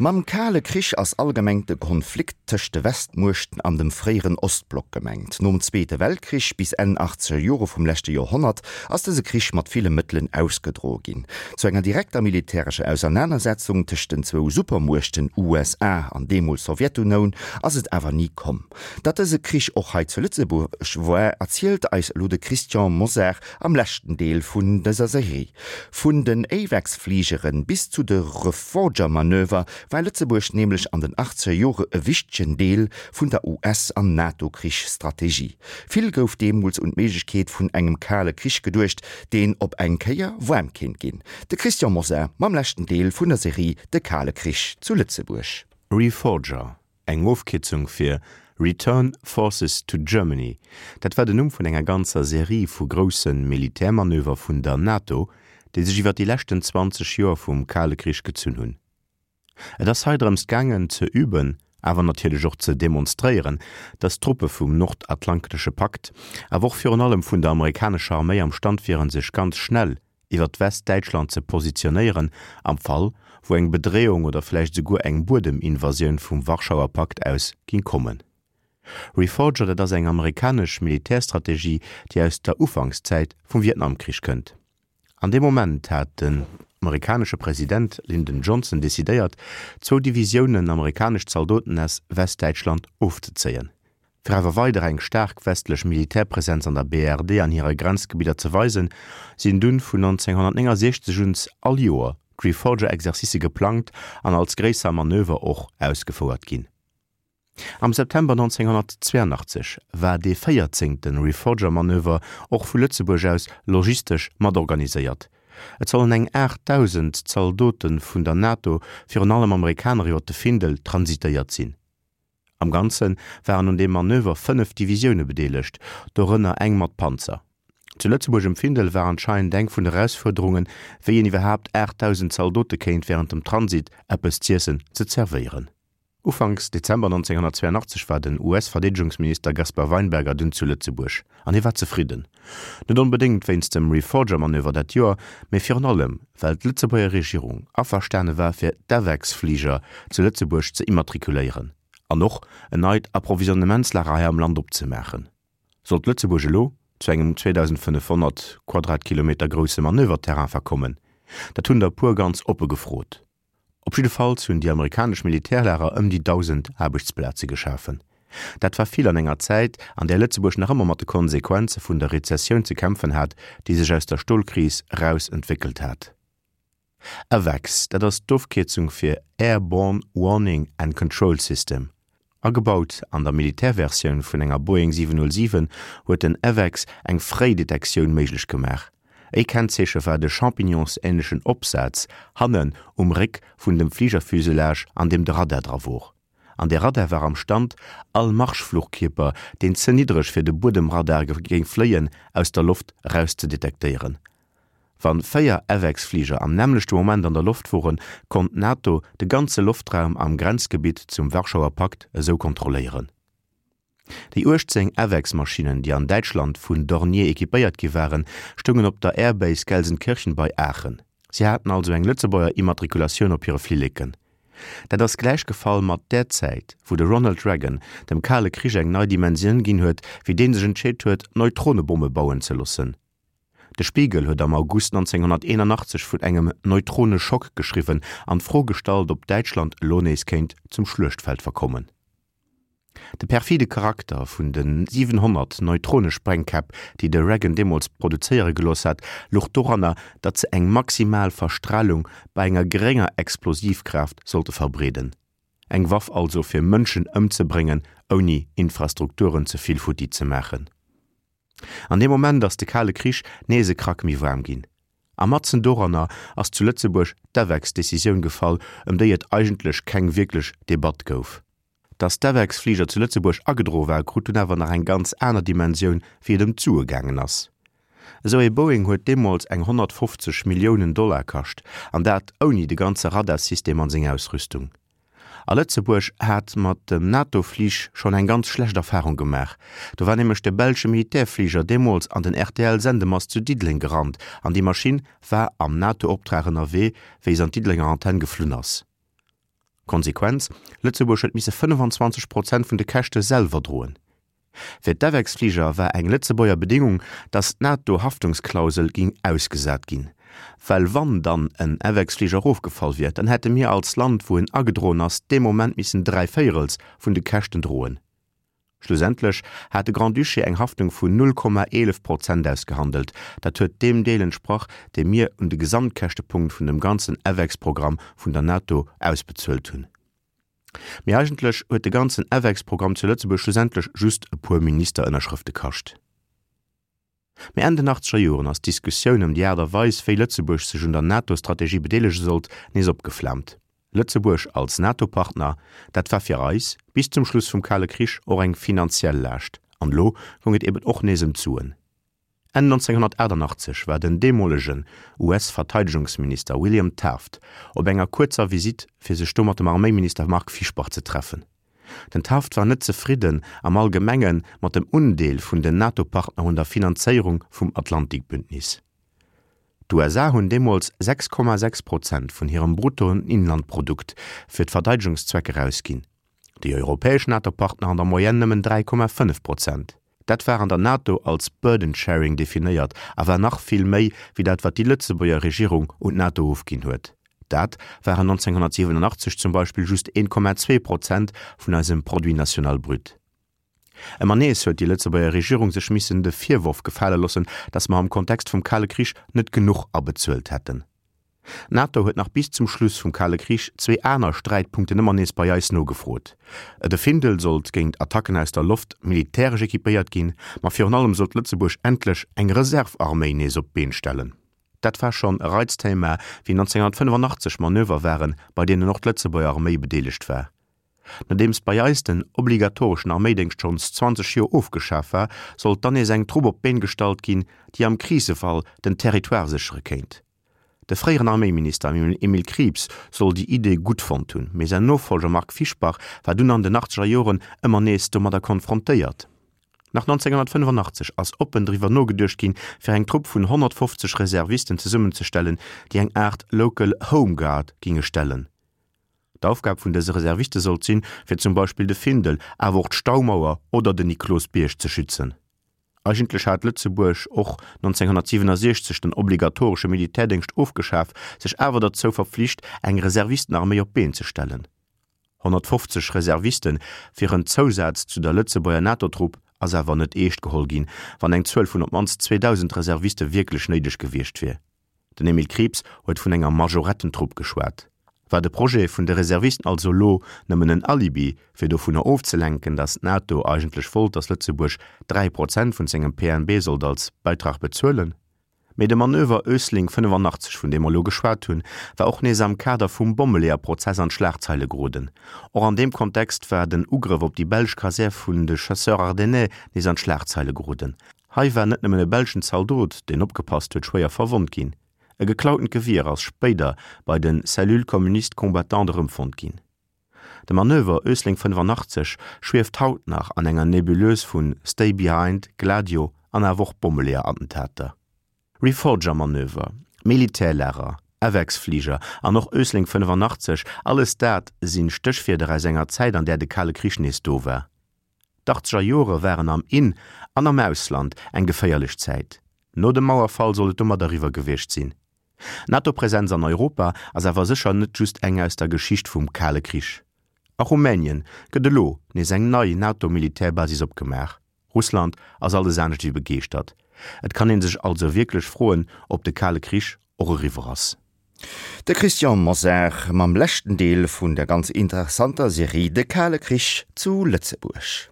Mam Kale Krich ass allgemeng de Konflikt tëscht de Westmuechten an dem fréieren Ostblock gemengt. Nom Zweete Weltkrich bis Enn achtzeger Jore vum leschte Joerhonnert ass dëse Krich mat ville Mëttelen ausgedroe ginn. Zu enger direkter militärescher Ausernanersetzung tëscht den zwou Supermuechten USA an deemools Sowjetunoun ass et awer ni komm. Datt dëse Krich och hei zu Lëtzebuerg war, erzielt eis elo de Christian Mosar am leschten Deel vun dëser Serie. Vun den AWACS-Fligeren bis zu de Reforger-Manöver war Lëtzebuerg nämlech an den achtzeger Jore e wichtegen Deel vun der US an NATO-Krichsstrategie. Vill gouf deemools un d'Méiglechkeet vun engem Kale Krich geduecht, deen op eng Kéier waarm kéint ginn. De Christian Mosar mam leschten Deel vun der Serie De Kale Krich zu Lëtzebuerg. Reforger, Eng Ofkierzung fir Return Forces to Germany, dat war den Numm vun enger ganzer Serie vu grousse Militärmanöver vun der NATO, déi sech iwwer déi leschten 20 Joer vum Kale Krich gezunn hunn. Et ass hei drëms gaangen ze üben, awer natierlech och ze demonstréieren, datt d'Truppe vum Nordatlantesche Pakt, awer och virun allem vun der amerikanescher Arméi am Stand wieren, sech ganz schnell iwwert Westdäitschland ze positionéieren, am Fall wou eng Bedreeung oder vläicht esouguer eng Buedeminvasioun vum Warschauer Pakt aus ging kommen. Reforger, dat ass eng amerikanesch Militärstrategie, déi aus der Ufankszäit vum Vietnamkrich kënnt. An deem Moment hat den amerikanesche President Lyndon Johnson decidéiert, zwou Divisiounen amerikanesch Zaldoten aus Westdäitschland ofzezéien. Fir awer weider eng staark westlech Militärpresenz an der BRD an hire Grenzgebidder ze weisen, sinn dunn vun 1969 un all Joer d'Reforger-Exercicë geplangt an als gréisser Manöver och ausgefouert ginn. Am September 1982 war dee véierzéngte Reforger-Manöver och vu Lëtzebuerg aus logistesch matorganiséiert. Et sollen eng 8.000 Zaldote vun der NATO, virun allem Amerikaner, iwwer de Findel transitéiert sinn. Am Ganze waren un deem Manöver 5 Divisioune bedeelegt, dorënner eng mat Panzer. Zu Lëtzebuerg um Findel war anscheinend eng vun de Erausfuerderungen, wéi een iwwerhaapt 8.000 Zaldote kéint wärend dem Transit eppes z'iessen ze zerwéieren. Ufanks Dezember 1982 war den US-Verdeedegungsminister Gaspar Weinberger dunn zu Lëtzebuerg. An hie war zefridden. Net onbedéngt wéinst dem Reforger-Manöver dat Joer, mee virun allem, well d'Lëtzebuerger Regierung averstane war fir d'AWACS-Fliger zu Lëtzebuerg ze immatrikuléieren an och en neit Approvisionnementslager hei am Land opzemaachen. Sollt Lëtzebuerg elo zu engem 2.500 Quadratkilometer grousse Manöverterrain verkommen? Dat hunn der e puer ganz oppe gefrot. Op jiddefalls hunn déi amerikanesch Militärlager ëm déi 1.000 Aarbechtsplaze geschafen. Dat war vill an enger Zäit, an där Lëtzebuerg nach ëmmer mat de Konsequenze vun der Rezessioun ze kämpfen hat, déi sech aus der Stolkris eraus entwéckelt hat. AWACS, dat ass d'Ofkierzung fir Airborne Warning and Control System. Agebaut an der Militärversioun vun enger Boeing 707 huet den AWACS eng fréi Detektioun méiglech gemaach. E Kennzeeche war de champignonsänlechen Opsaz hannen um Réck vun dem Fligerfuselage an deem de Radar dra wor. An dee Radar war am Stand, all Marschfluchkierper, deen ze niddreg fir de Buedemradar géing fléien, aus der Loft eraus ze detektéieren. Wann 4 AWACS-Fliger am nämmlechte Moment an der Loft woren, konnt d'NATO de ganze Loftraum am Grenzgebitt zum Warschauer Pakt esou kontrolléieren. Déi 18 AWACS-Maschinnen, déi an Däitschland vun Dornier equipéiert gi waren, stoungen op der Airbase Gelsenkirchen bei Aachen. Si haten also eng Lëtzebuerger Immatrikulatioun op hire Flilleken. Dat ass gläich gefall mat där Zäit, wou de Ronald Reagan dem Kale Krich eng nei Dimensioun ginn huet, wéi dee sech entscheet huet, Neutronebomme bauen ze loossen. De Spiegel huet am August 1981 vun engem Neutroneschock geschriwwen an d'Fro gestallt, ob Däitschland elo nees kéint zum Schluechtfeld verkommen. De perfide Charakter vun de 700 Neutronesprengkäpp, déi de Reagan deemools produzéiere gelooss hat, louch doranner, datt se eng maximal Verstralung bei enger gerénger Explosivkraaft sollte verbreeden. Eng Waff also fir Mënschen ëmzebréngen, ouni Infrastrukturen ze vill futti ze maachen. An deem Moment ass de Kale Krich nees e Krack méi waarm ginn. A matzen doranner ass zu Lëtzebuerg d'AWACS-Decisioun gefall, ëm déi et eigentlech keng wierklech Debatt gouf. Datt d'AWACS-Fliger zu Lëtzebuerg agedroe war, krut dunn awer nach eng ganz aner Dimensioun, wéi et ëm d'Sue gaangen ass. Esou ee Boeing huet deemools eng 150 Milliounen Dollar kascht, an dat ouni de ganze Radarsystem an seng Ausrüstung. A Lëtzebuerg hat mat dem NATO-Flich schonn eng ganz schlecht Erfarung gemaach. Do war nämlech de belsche Militärfliger deemools an den RTL-Sendemast zu Diddeleng gerannt an déi Maschinn war am NATO-Optrag ënnerwee, wéi se an d'Diddelenger Antenn geflunn ass. Konsequenz, Lëtzebuerg huet misse 25 Prozent vun de Käschte selwer droen. Fir d'AWACS-Fliger war eng Lëtzebuerger Bedingung, datt d'NATO-Haftungsklausel ging ausgesat ginn. Well wann dann en AWACS-Fliger erofgefall wier, dann hätte mir als Land, wou en agedroen ass, dee Moment missen dräivéierels vun de Käschten droen. Schlussendlech hat de Grand-Duché eng Haftung vun 0,11 Prozent ausgehandelt. Dat huet deem Deel entsprach, dee mir un de Gesamtkäschtepunkt vun dem ganzen AWACS-Programm vun der NATO ausbezuelt hunn. Mee eigentlech huet de ganzen AWACS-Programm zu Lëtzebuerg schlussendlech just e puer Ministerënnerschrëfte kascht. Mee Enn den achtzeger Joren ass d'Diskussioun ëm déi Aart a Weis, wéi Lëtzebuerg sech un der NATO-Strategie bedeelege sollt, nees opgeflaamt. Lëtzebuerg als NATO-Partner, dat war fir eis bis zum Schluss vum Kale Krich och eng finanziell Laascht. An elo goung et eben och nees ëm d'Suen. Enn 1988 war den deemolegen US-Verteidegungsminister William Taft op enger kuerzer Visitt fir sech do mat dem Arméiminister Marc Fischbach ze treffen. Den Taft war net zefridden am Allgemenge mat dem Undeel vun den NATO-Partner un der Finanzéierung vum Atlantikbündnis. D'USA hunn deemools 6,6 Prozent vun hirem Bruttoinlandprodukt fir d'Verteidegungszwecker ausginn, déi europäesch NATO-Partner an der Moyenne nëmmen 3,5 Prozent. Dat war an der NATO als Burden sharing definéiert a war nach vill méi wéi dat wat déi Lëtzebuerger Regierung un d'NATO ofginn huet. Dat waren 1987 zum Beispill just 1,2 Prozent vun eisem Produit national brut. Ëmmer nees huet déi Lëtzebuerger Regierung sech missen de Virworf gefale loossen, datt mer am Kontext vum Kale Krich net genuch abezuelt hätten. D'NATO huet nach bis zum Schluss vum Kale Krich zwee aner Sträitpunkten ëmmer nees bei eis nogefrot, De Findel sollt géint Attacken aus der Loft militäresch equipéiert ginn, ma virun allem sollt Lëtzebuerg endlech eng Reserve-Arméi nees op d'Been stellen. Dat war schonn e Reizthema, wéi 1985 Manöver waren, bei deenen och d'Lëtzebuerger Arméi bedeelegt war. Nodeems bei eis den obligatoreschen Arméidéngscht schonns 20 Joer ofgeschaf war, sollt dann nees eng Trupp op d'Been gestallt ginn, déi am Krisefall den Territoire séchere kéint. De fréieren Arméiminister Emile Krieps soll déi Idee gutt fonnt hunn, mee säin Nofollger Marc Fischbach war dunn an den achtzeger Joren ëmmer nees domadder konfrontéiert. Nach 1985 ass oppen driwwer nogeduecht ginn, fir eng Trupp vun 150 Reservisten zesummenzestellen, déi eng Aart Local Home Guard ginge stellen. D'Aufgab vun dëse Reserviste sollt sinn, fir zum Beispill de Findel, awer och d'Staumauer oder den Niklosbierg ze schützen. Eigentlech hat Lëtzebuerg och 1967 den obligatoresche Militärdéngscht ofgeschaf, sech awer derzou verpflicht, eng Reservistenarméi op d'Been ze stellen. 150 Reserviste fir en Zousaz zu der Lëtzebuerger NATO-Trupp ass awer net eescht geholl ginn, wann eng Zuel vun op d'mannst 2.000 Reserviste wierklech néideg gewiescht wier. Den Emile Krieps huet vun enger Majorettentrupp geschwat. War de Projet vun de Reservisten also lo nëmmen en Alibi, fir dovunner ofzelenken, datt d'NATO eigentlech wollt, datt Lëtzebuerg 3 Prozent vun sengem PNB sollt als Beitrag bezuelen? Mee de Manöver Ösling 85, vun deem mer lo geschwat hunn, war och nees am Kader vum Bommeleeër-Prozess an d'Schlagzeile geroden. Och an deem Kontext war den Ugrëff op déi belsch Kasär vun de Chasseurs Ardennais nees an d'Schlagzeile geroden. Hei war net nëmmen e belschen Zaldot, deen opgepasst huet, schwéier verwonnt ginn. E geklautent Gewier ass spéider bei de Cellules communistes combattantes erëmfonnt ginn. De Manöver Ösling 85 schwieft haut nach an enger Nebuleuse vu Stay Behind, Gladio an awer och Bommeleeër-Attentater. Reforger-Manöver, Militärlager, AWACS-Fliger an och Ösling 85, alles dat sinn Stéchwierder aus enger Zäit, an där de Kale Krich nees do war. D'Achtzeger Jore waren am In an am Ausland eng geféierlech Zäit. No dem Mauerfall soll et domat eriwwer gewiescht sinn. D'NATO-Presenz an Europa ass awer sécher net just eng aus der Geschicht vum Kale Krich. A Rumänien gëtt elo nees eng nei NATO-Militärbasis opgemaach. Russland ass alles anescht ewéi begeeschtert. Et kann ee sech also wierklech froen, ob de Kale Krich och eriwwer ass. De Christian Mosar mam leschten Deel vun der ganz interessanter Serie De kale Krich zu Lëtzebuerg.